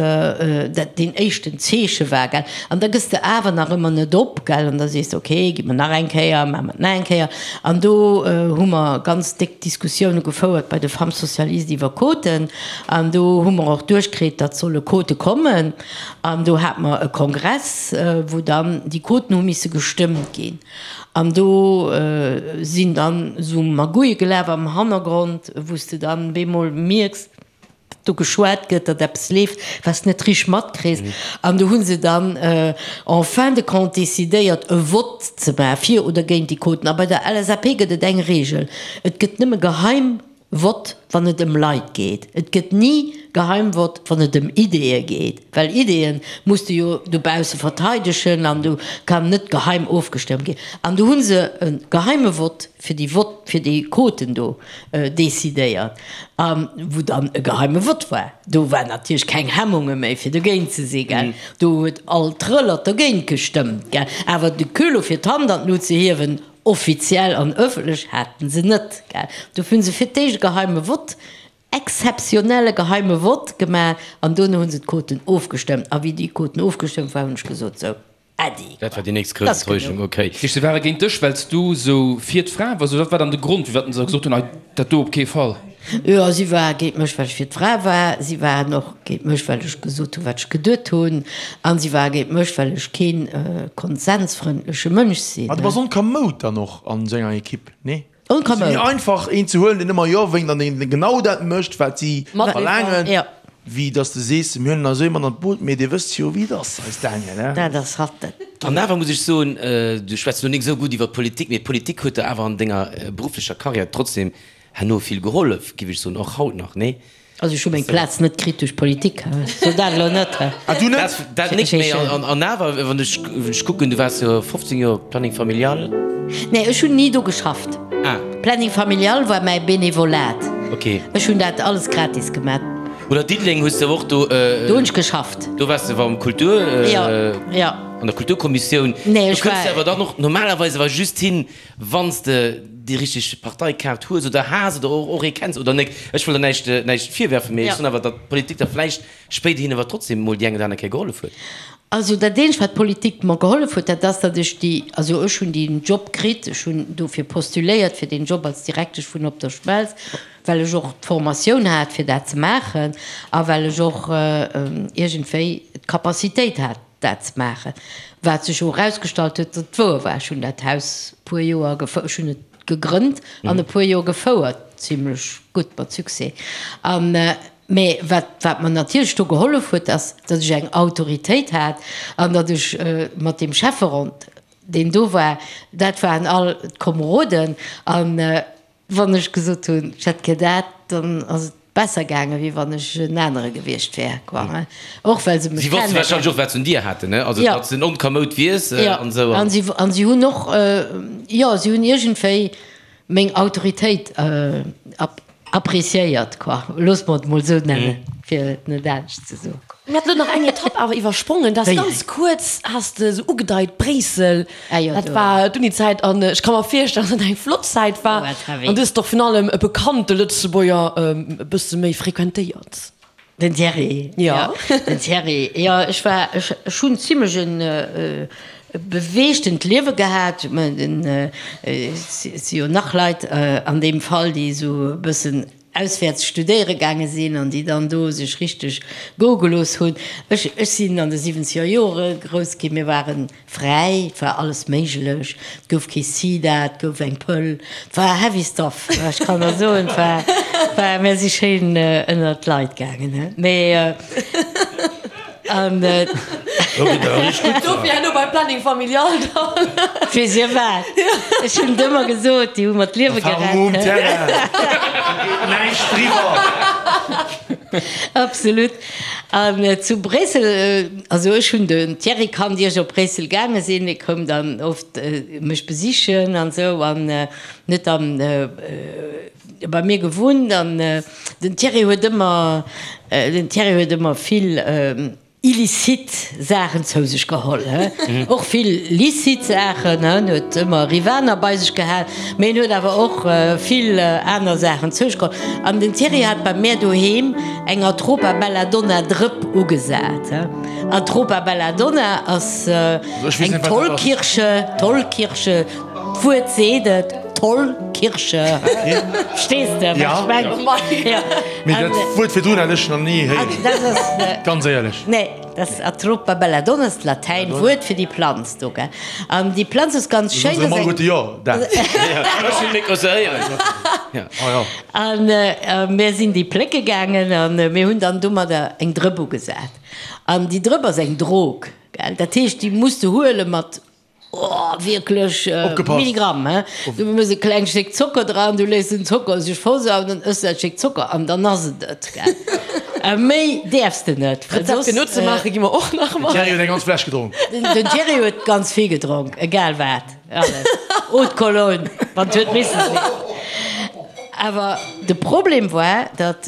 dat deen éischten Zeeche war, gell. An da gëss de awer nach ëmmer net op, gell, an da sees de, ok, gi mer nach eng Kéier, maache mer et nach eng Kéier. An do hu mer ganz déck Diskussioune gefouert bei de Femmes socialistes iwwer Quoten. An do hu mer och duerchkritt, datt solle Quote kommen. An do hate mer e Kongress, wou dann déi Quoten hu misse gestëmmt ginn. An do sinn dann esou Magouille gelaf am Hannergrond, wou s de dann bemol mierks, datt do geschwat gëtt, datt eppes leeft, wat s de net richteg matkriss. An do hu se dann en fin de compte decidéiert, e Vott ze maachen, fir oder géint déi Quoten. A bei der LSAP gëtt et eng Regel, Et gëtt nëmme geheim Vott, wann et ëm Leit geet. Et gëtt ni Geheimvott, wann et ëm Ideeë geet, well Ideeë muss de jo dobausse verteidegen an do kann net geheim ofgestëmmt ginn. An do hu se e geheime Vott fir déi Vott, fir déi Quoten do decidéiert, a wou dann e geheime Vott war. Do war natierlech keng Hemmunge méi fir dogéint ze si, gell. Do huet all Trëllert dogéint gestëmmt, gell. Awer de Culot fir d'Hand an d'Lut ze hiewen, Offiziell an ëffentlech haten se net, gell. Dofir hunn se fir d'éischt e geheime Vott, exzeptionelle geheime Vott gemaach an dono hunn se d'Quoten ofgestëmmt. A wéi déi Quoten ofgestëmmt waren, hunn ech gesot, sou, Äddi, Dat war déi nächst grouss Enttäuschung, okay. Heescht, se ware géint dech, well s du sou fir d'Fra wars, oder wat war dann de Grond, firwat se gesot hunn, ei, dat do op kee Fall? Jo, si ware géint mech, well ech fir d'Fra war. Si waren och géint mech, well ech gesot hunn, wat ech geduet hunn. A si ware géint mech, well ech kee konsensfrëndleche Mënsch sinn. Ma du bass onkamoud dann och an esou enger Ekipp, nee? Onkamoud. Et ass méi einfach, een ze huelen, deen ëmmer Jo wénkt an deen genau dat mécht, wat si verlaangen, wéi datt s de sees, mir huelen eis ee mat an d'Boot, mee Dir wësst jo, wéi et ass, eis Daniel, he? Dat ass hatt. An awer muss ech soen, du schwätz elo nik esou gutt iwwer d'Politik, mee d'Politik huet der awer an denger berufflecher Karriär trotzdem Herno vill gehollef, giff ech soen, och haut nach, nee? Also ech hu meng Plaz net kritt duerch Politik, so dat elo net. Ah du net? Dat nik, mee an awer, wann ech kucken, du waars jo 15 Joer Planning Familial. Nee, ech hunn ni do geschafft. Ah. Planning Familial war mäi Benevolat. Ok. Ech hunn dat alles gratis gemat. Oder Diddeleng hues de och do. Do hunn ech geschafft. Do waars de am Kultur. Jo, jo. An der Kulturkommissioun. Nee, ech war. Do kënns de awer dann och normalerweis awer just hin, Wann s de déi richteg Parteikaart hues oder has oder och ee kenns oder nek. Ech wëll der näischt, näischt virwerfen, mee ech soen awer, datt d'Politik der vläicht spéiderhin awer trotzdem emol déi eng oder aner Kéier gehollef huet. Also dat eenzegt, wat d'Politik mer gehollef huet, dat ass, datt ech déi, also ech hunn deen Job kritt, ech hunn dofir postuléiert fir deen Job als Direktesch vun Op der Schmelz, well ech och d'Formatioun hat fir dat ze maachen a well ech och iergendwéi d'Capacitéit hat, dat ze maachen, wat sech och erausgestallt huet, datt et wouer war. Ech hunn dat Haus e puer Joer gefou, ech hunn et gegrënnt an e puer Joer gefouert, zimlech gutt, mat Succès. An. Mä wat, wat mer natierlech do gehollef huet, ass, datt ech eng Autoritéit hat an datt ech mat deem Schäfferond, deen do war, dat waren all d'Komeroden, an wann ech gesot hunn, ech hätt gär dat, dann ass et besser gaangen, wéi wann ech en anere gewiescht wär, quoi, hein. Och well se mech Si wosste warscheinlech och, wat se un dir haten, ne? Also, datt s de en Onkamoud wiers an esou. An si, an si hunn och, jo, si hunn iergendwéi meng Autoritéit Appréciéiert, quoi. Loosse mer et mol esou nennen, fir et net anescht ze soen. Mir haten elo nach eng Etapp awer iwwersprongen, dat ass ganz kuerz, has de esou ugedeit, Bréissel, dat war d'Unizäit an ech ka mer virstellen, dass dat eng flott Zäit war an du hues och virun allem e bekannte Lëtzebuerger e bësse méi frequentéiert. Den Thierry, jo. Den Thierry, jo. Ech war, ech, ech hunn zimlech en beweegtent Liewe gehat. Ech mengen, den, et si jo nach Leit an deem Fall, déi esou e bëssen auswäerts studéiere gaange sinn an déi dann do sech richteg goe gelooss hunn. Ech, ech sinn an de siwwenzeger Jore grouss ginn. Mir waren Fräi, et war alles méiglech, et gouf kee Sida, et gouf eng Pëll, et war heavy stuff, ech kann der soen, et war, war, mär si schéin ënnert d'Leit gaangen, he, mee an. Dofir herno beim Planning familial dann. Weess dir wat, ech hunn et ëmmer gesot, déi hu mer d'Liewe gerett, Erfahrung um Terrain, do geet näischt driwwer. Absolut. An zu Bréissel, also ech hunn den Thierry kannt, ier ech op Bréissel gaange sinn. Hie koum dann oft mech besichen an esou an huet dann bei mir gewunnt. An den Thierry huet ëmmer, den Thierry huet ëmmer vill illicite Saachen zou sech geholl, he, och vill licite Saachen, he, en huet ëmmer Rivaner bei sech gehat, mee en huet awer och vill aner Saachen zou sech geholl. An den Thierry hat bei mär doheem eng Atropa Belladonna Drëpp ugesat, he. Atropa Belladonna ass eng Tollkirsche, Tollkirsche, d'Wuert seet et, Tollkirsche, verstees de, wat ech mengen? Jo. Mee dat Wuert virdrun hat ech nach ni héieren, ganz éierlech. Nee, dat ass Atropa belladonna, ass d'Latäin Wuert fir déi Planz do, gell. An déi Planz ass ganz schéin. Soen se alleguerte jo, dat. Ech hunn nik se héieren. An mir sinn déi plécke gaangen an mir hunn dann domadder eng Drëpp ugesat. An déi Drëpp ass eng Drog, gell. Dat heescht, déi muss de huele mat Oh, wierklech Milligramm, he? Du mëss e klengt Stéck Zocker dran, du léiss den Zocker sech versauen, dann ëss de dat Stéck Zocker an dann ass et et, gell? A méi däerfs de net, well soss. Rezept fir nozemaache gi mer och nach mat. Den Thierry huet eng ganz Fläsch gedronk. Den Thierry huet ganz vill gedronk, egal wat, alles. Eau de Cologne, wann et huet misse sinn. Awer de Problem war, datt.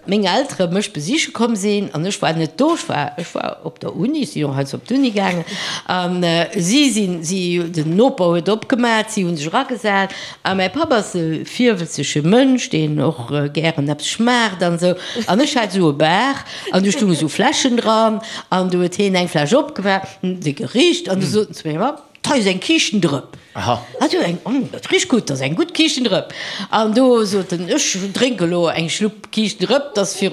Meng Eltere mech besiche komm sinn an ech war net do, ech war, ech war op der Uni, si och heiansdo op d'Uni gaangen an si sinn, si, den Noper huet opgemat, si hu sech eragesat a mäi Papp ass e virwëtzege Mënsch, deen och gären eppes schmaacht an esou an ech hat esou e Bar an do stounge sou Fläschen dran an du huet hien eng Fläsch opgemaach, se gericht an du sot en zu mengem Papp, Hei ass eng Kiischtendrëpp. Aha. Ah, du eng, oh, dat richt gutt, dat ass eng gutt Kiischtendrëpp. An do sot en, ech drénke lo eng Schlupp Kiischtendrëpp, dat ass fir,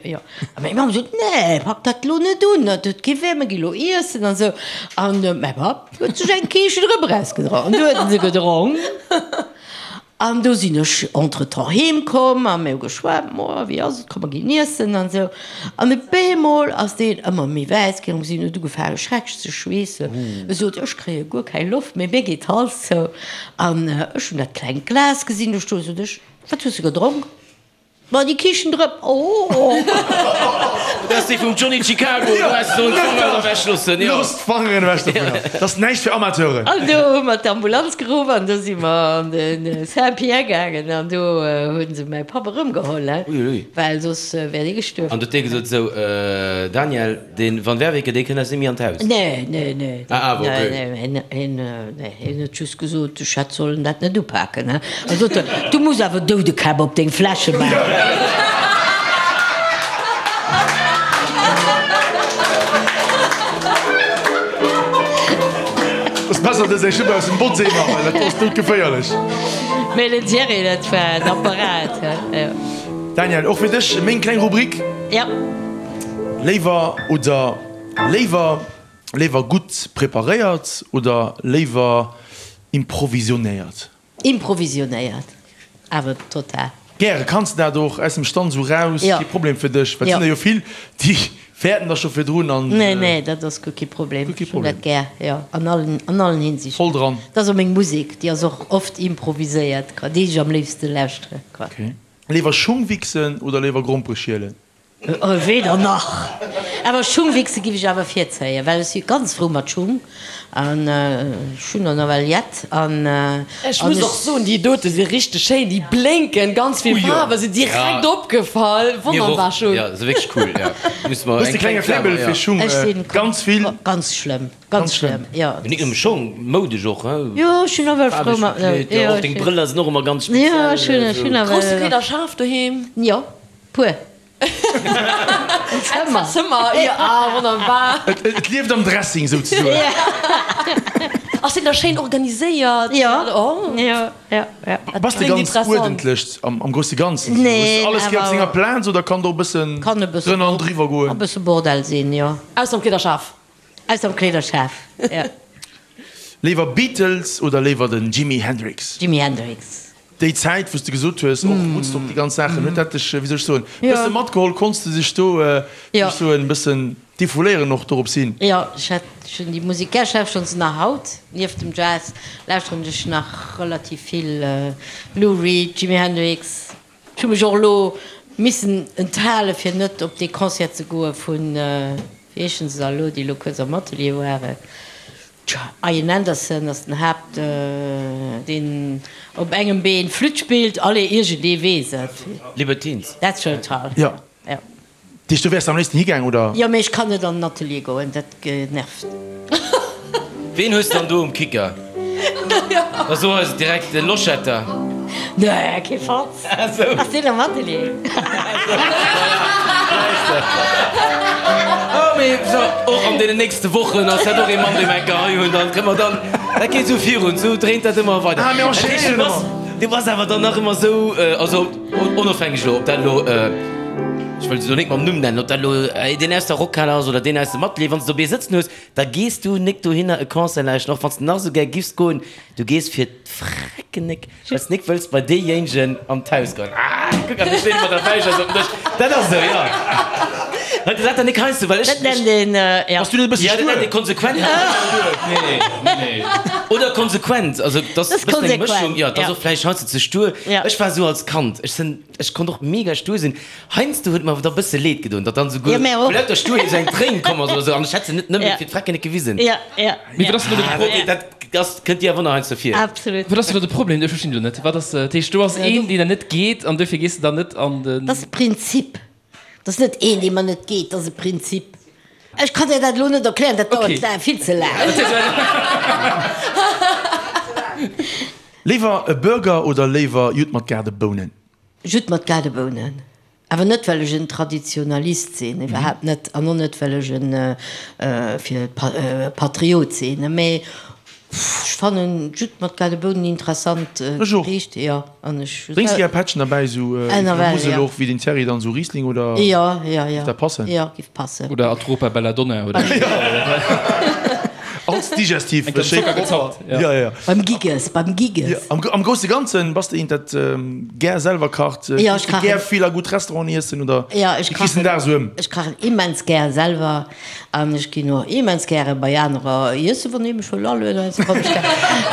jo. A meng Mamm sot, nee, pak dat lo net un, dat huet kee Wäert, mir gi lo iessen an esou. An mäi Papp huet sech eng Kiischtendrëpp erausgedronk. An du huet en se gedronk. An do sinn ech entretemps heem komm a mir hu geschwat, Moa, wéi ass et, komm mer ginn iessen an esou. An op eemol ass deen ëmmer méi wäiss ginn, si huet ugefaange schrecklech ze schweessen. E sot, ech kréie guer keng Loft méi, mir geet d'Hals zou. An ech hunn dat klengt Glas gesinn do stoen, sot ech, wat hues de gedronk? Ma déi Kiischtendrëpp, oh! Dat ass déi vum Johnny Chicago, do häss de sollen d'Fangeren ewech loossen, jo. Looss d'Fangeren ewech dovunner, dat ass näischt fir Amateuren. An do hu mer d'Ambulanz geruff an do si mer an de Saint-Pierre gaangen an do hu se mäi Papp erëmgeholl, well soss wär dee gestuerwen. An do huet dee gesot, Sou, Daniel, De Van Werveke, dee kënnt eis net méi an d'Haus. Nee, nee, nee. Ah, awer, okay. Nee, nee, hien, nee, hien huet just gesot, ech hätt sollen dat net upaken, he. A sot en, du muss awer Doudekäpp op deng Fläsche maachen. Ass besser, dass eng Schupp aus dem Boddsee maachen, dat ass doudgeféierlech. Mee den Thierry, dat war en Apparat, he, jo. Daniel, och fir dech meng kleng Rubrik. Ja. Léiwer oder léiwer léiwer gutt preparéiert oder léiwer improvisionéiert? Improvisionéiert, awer total. Gäre. Kanns de dat och aus dem Stand esou raus? Kee Problem fir dech? Well et sinn der jo vill, déi fäerten da scho virdrun an. Nee, nee, dat ass guer kee Problem. Ech hunn dat gär, jo, an allen, an allen Hinsichten. Voll dran. Dat ass och meng Musek, déi ass och oft improviséiert, quoi, déi ech am léifste lauschtere, quoi. Ok. Léiwer Schung wichsen oder léiwer Grompere schielen? Weder nach. Awer Schungwichse giff ech awer virzéien, well ech si ganz frou mat Schung an ech hunn der nawell jett an. Ech muss och soen, déi dote si richteg schéin, déi blénken, ganz vill Faarwen, si direkt opgefall, wonnerbar Schung. Jo, se wierklech cool, jo. Hues de klenge Faible fir Schung? Ganz vill. Ganz schlëmm, ganz schlëmm, jo. Mee nik nëmme Schong, moudesch och, he? Jo, ech hunn nawell frou mat. Faarweg gekleet, jo, och deng Brëller sinn och ëmmer ganz speziell. Jo, ech hunn, ech hunn nawell. Grousse Kleederschaf doheem? Jo, puer. En Zëmmer. Zëmmer, jo, ah, wonnerbar. Et lieft am Dressing souzesoen. Ass deen da schéin organiséiert? Jo, jo, jo, jo. Bass de ganz uerdentlech am grousse Ganzen? Nee, awer. Hues de alles gär op senger Plaz oder kann do e bëssen drënner an driwwer goen? Kann e bësse Bordell sinn, jo. Ausser am Kleederschaf. Ausser am Kleederschaf, jo. Léiwer Beatles oder léiwer den Jimi Hendrix? Jimi Hendrix. Déi Zäit, wou s de gesot hues, och Woodstock, déi ganz Saachen, huet dat dech, wéi soll ech soen, e bësse matgeholl? Konns de dech do, wéi soll ech soen, e bëssen defouléieren och dorops hin? Jo, ech hat schonn déi Musek gär. Ech lauschteren se nach haut. Nieft dem Jazz lauschteren ech nach relativ vill Lou Reed, Jimi Hendrix. Ech hu mech och elo missen enthale fir net op dee Concert ze goe vun, wéi heeschen se da elo, déi elo kuerz am Atelier waren. Ian Anderson ass den Haapt, deen op engem Been Flütt spillt. Allez, iergendee weess et. Libertines. Dat ass schon toll. Jo. Jo. Deech, du wäers am léifsten higaang, oder? Jo, mee ech kann net an den Atelier goen, dat nervt. Ween hues dann do um Kicker? Da so eis et direkt, de Loschetter. Nee, kee Fatz. Ass deen am Atelier? Oh, mee so, och an deenen nächste Wochen ass dat och ee Mann, dee mer eng Kéier hei hunn. Dann kënne mer dann, dat geet esou virun, esou dréint dat ëmmer weider. Ah, mir enchaînéieren ëmmer. Du bass awer dann nach ëmmer esou, also onofhängeg elo, ob dat elo, ech wëll se elo net mam Numm nennen, ob dat elo deen aus der Rockhal ass oder deen aus dem Atelier, wann s de dobäi sëtzen hues, da gees du nik dohinner e Concert lauschten, och wann s de nach esou gär giffs goen, du gees fir d'Frecken nik. Well s nik wëlls bei deejéinegen an d'Haus goen. Ah, kuck, an du steet mat der Fäisch op dem Dësch. Dat ass esou, jo. Huet dat dann nik heiansdo, well ech. Dat nennt een, ja. Bass du net e bësse Ja, dat stuer? nennt ee konsequent. Nee, nee, nee. Oder konsequent, also dat ass e bëssen eng Mëschung. Jo, dat ass och vläicht heiansdo ze stuer. Ech war esou als Kand, ech sinn, ech konnt och mega stuer sinn. Heiansdo huet mer awer da bësse leed gedoen, datt dann esouguer vu lauter Stuerheet esou eng Tréin komm ass oder esou an ech hätt se net nëmme fir d'Frecken net gewisen. Mee wat ass denn do de Problem? Dat ass, kënnt dir awer nach heiansdo vir. Absolut. Wat ass denn do de Problem? Ech verstinn elo net. Wat ass, dat heescht, do ass een, deen der net geet an duerfir gees de dann net an den. Dat ass e Prinzip. Dat ass net een, dee mer net geet, dat ass e Prinzip. Ech kann dir dat elo net erklären, dat dauert vill ze laang. Léiwer e Burger oder léiwer Judd mat Gaardebounen? Judd mat Gaardebounen. Awer net well ech en Traditionalist sinn, iwwerhaapt net, an och net well ech en fir Patriot sinn, mee ech fannen Judd mat Gaardebounen interessant Gericht, jo, an ech. Drénks de gär Pättchen derbäi, sou wéi vun der Musel och, wéi den Thierry dann, sou Riesling oder? Jo, jo, jo. Giff dat passen? Jo, giff passen. Oder Atropa Belladonna oder. Als Digestif. Eng Zocker gezappt. Ja, ja. Beim Giges, beim Giges. Ja, am, am grousse Ganzen bass de eent, dat gär selwer kacht. Ja, ech kachen. Gär vill a gutt Restauranten iessen oder Ja, ech wéi kriss den kachen. Dag esou ëm? Ech kachen immens gär selwer an ech ginn och immens gäre bei anerer iessen, wann ee mech wëll alueden, also komm ech gär.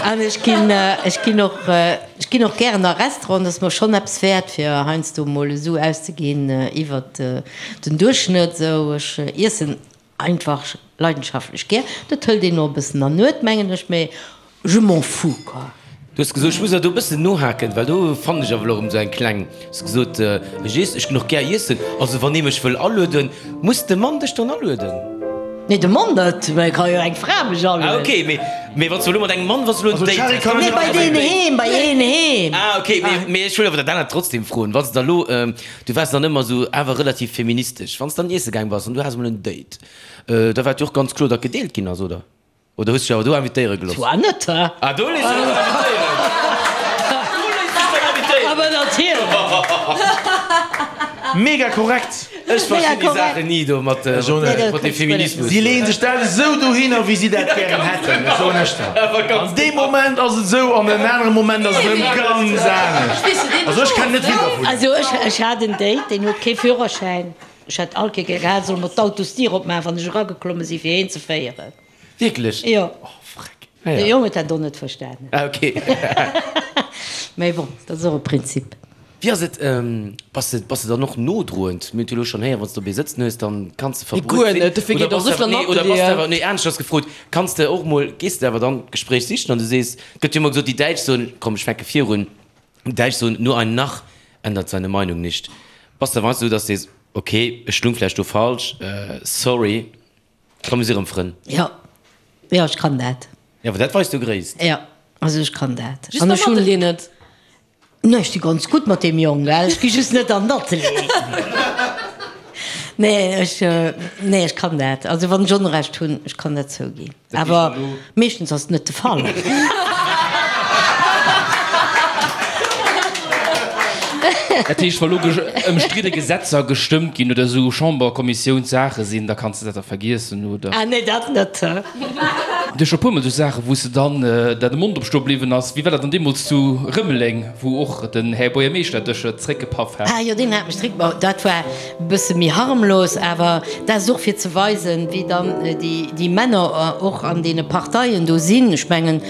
An ech ginn, ech ginn och, ech ginn och gären a Restauranten, dat ass mer schonn eppes wäert, fir heiansdo mol esou auszeginn iwwert den Duerchschnëtt esou. Ech iessen Einfach leidenschaftlech gär. Dat hëlt een och e bëssen an Nuet, mengen ech, mee je m'en fous, quoi. Du hues gesot, ech muss awer do e bëssen nohaken, well do fannen ech awer elo erëm esou eng kleng, hues gesot, ech iess, ech ginn och gär iessen, also wann ee mech wëll alueden, muss de Mann dech dann alueden? Nee, de Mann net, mä et ka jo eng Fra mech alueden. Ah ok, mee, mee wann s du elo mat engem Mann, wann s du elo en Date häss? Nee, bei deen heem, bei een heem. Ah ok, mee, mee ech wëll awer dat anert trotzdem froen, wann s de da elo, Du waars dann ëmmer esou awer relativ feministesch. Wann s dann iesse gaang bass an du has emol en Date, da war et jo och ganz kloer, datt gedeelt ginn ass, oder? Oder hues dech awer do invitéiere gelooss? Zwar net, hä? Ah, do léiss dech dann invitéieren! Do léiss dech dann invitéieren! Aber natierlech! Mega korrekt. Ech verstinn déi Saachen ni do mat dem Feminismus. Si leeën sech dat esou dohinner, wéi si dat gären hätten, ech soen ech der. An deem Moment ass et esou, an en anere Moment ass et erëm ganz anescht. Also ech kennen net vill dervun. Also ech hat en Date, deen huet kee Führerschäin. Ech hätt all Kéier gär solle mer d'Autosdier opmaachen, wann ech erageklomme sinn, fir heen ze féieren. Wierklech? Jo. Oh, freck. De Jong huet dat och net verstanen. Ah, ok. Mee bon, dat ass och e Prinzip. Wéi ass et, bass de, bass de dann och nodroend? Mir hunn et jo elo schonn héieren, wann s de op ee sëtzen hues, dann kanns de Nee, guer verbruet sinn. net. Dofir Oder geet och bass de esou awer, vill an nee, oder bass de Atelieren. awer, nee, aneschters gefrot, kanns de och mol, gees de awer dann d'Gespréich sichen an du sees, et gëtt jo ëmmer gesot, déi Däitsch soen, komm, ech fänke virun, déi Däitsch soen, nur ein Narr ändert seine Meinung nicht. Bass de awer heiansdo esou, dass de sees, ok, ech lung vläicht do falsch, sorry. Komm mir si rëm Frënn. Jo, jo, ech kann dat. Jo, awer dat weist jo Gréisst. Jo, also ech kann dat. Just beim Atelier net. Nee, ech si ganz gutt mat deem Jong, gell, ech gi just net an den Atelier. Nee, ech, nee, ech kann dat. Also wann ech Onrecht hunn, ech kann dat zouginn. Awer meeschtens ass et net de Fall. Dat heescht, wa lo ëmstridde Gesetzer gestëmmt ginn oder esou Chamberkommissiounssaache sinn, da kanns de dat da vergiessen, oder? Ah nee, dat net. Du hues scho puermol esou Saache wou s de dann der de Mond op stoe bliwwen ass. Wéi war dat dann deemools zu Rëmeleng, wou och den Här Buergermeeschter dech zeréckgepaff hat? Ah jo, deen hat mech zeréck, bon dat war e bësse méi harmlos, awer dat ass och fir ze weisen, wéi dann déi Männer och an deene Parteien do sinn. Ech mengen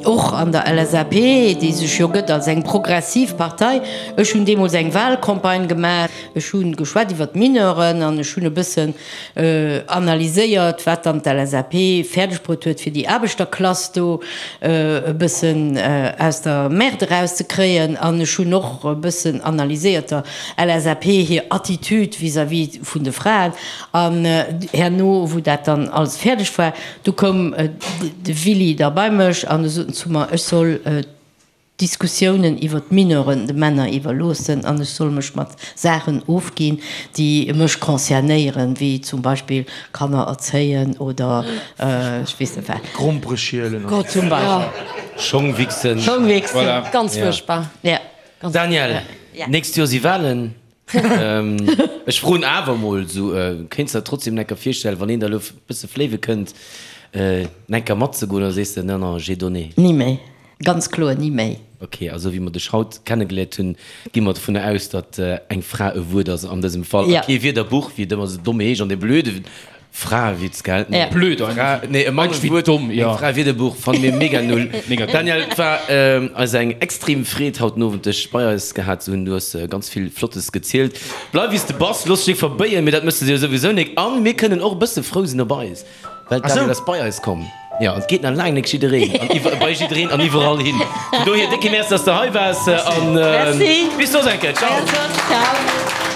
och an der LSAP, déi sech jo gëtt als eng progressiv Partei. Ech hunn deemools eng Wahlcampagne gemaach, ech hu geschwat iwwer d'Mineuren an ech hunn e bëssen analyséiert, wat dann d'LSAP fäerdeg bruet huet, fir déi Aarbechterklass do e bëssen aus der Merde erauszekréien. An ech hunn och e bëssen analyséiert der LSAP hir Attitude vis-à-vis vun de Fraen. An herno, wou dat dann alles fäerdeg war, du koum de Willy da bei mech an e sot zu mer, ech soll d'Diskussiounen iwwer d'Mineuren de Männer iwwerloossen an ech soll mech mat Saachen ofginn, déi mech concernéieren, wéi zum Beispill Kanner erzéien oder ech weess net wat. Grompere schielen oder. Zum Beispill. Schong wichsen. Schong wichsen. Voilà. Ganz fuerchtbar. Ja. Daniel, nächst Joer si Wahlen. Ech froen awer mol esou, kéints de der trotzdem enker virstellen, wann een der elo e bësse fléiwe kënnt, enker matzegoen oder sees de, non, non, j'ai donné? Ni méi. Ganz kloer ni méi. Ok, a sou wéi mer dech haut kennegeléiert hunn, gi mer dovunner aus, datt eng Fra e Wuert ass an dësem Fall a kee Wierderbuch, wéi et ëmmer sou domm heescht, an dee blöde Fraewitz, gell? Ja. Blöd Fra, nee, e Mann wéi domm, jo. Eng Fraewierderbuch fanne mir mega null. Mega dumm. Daniel, et war eis eng extrem Freed haut den Owend dech bei eis gehat ze hunn. Du hues ganz vill Flottes gezielt. Bleif wéi s de bass, looss dech nik verbéien, mee dat méchs de jo souwisou nik. An mir kënnen och e bësse frou sinn op eis. Well d'Daniel ass bei eis komm. Jo, an et geet nach laang nik jiddereen an iwwer, bei jiddereen an iwwerall hin. Vun dohier, décke Merci, dass de hei waars an Merci. bis soss eng Kéier. Ciao. Ciao.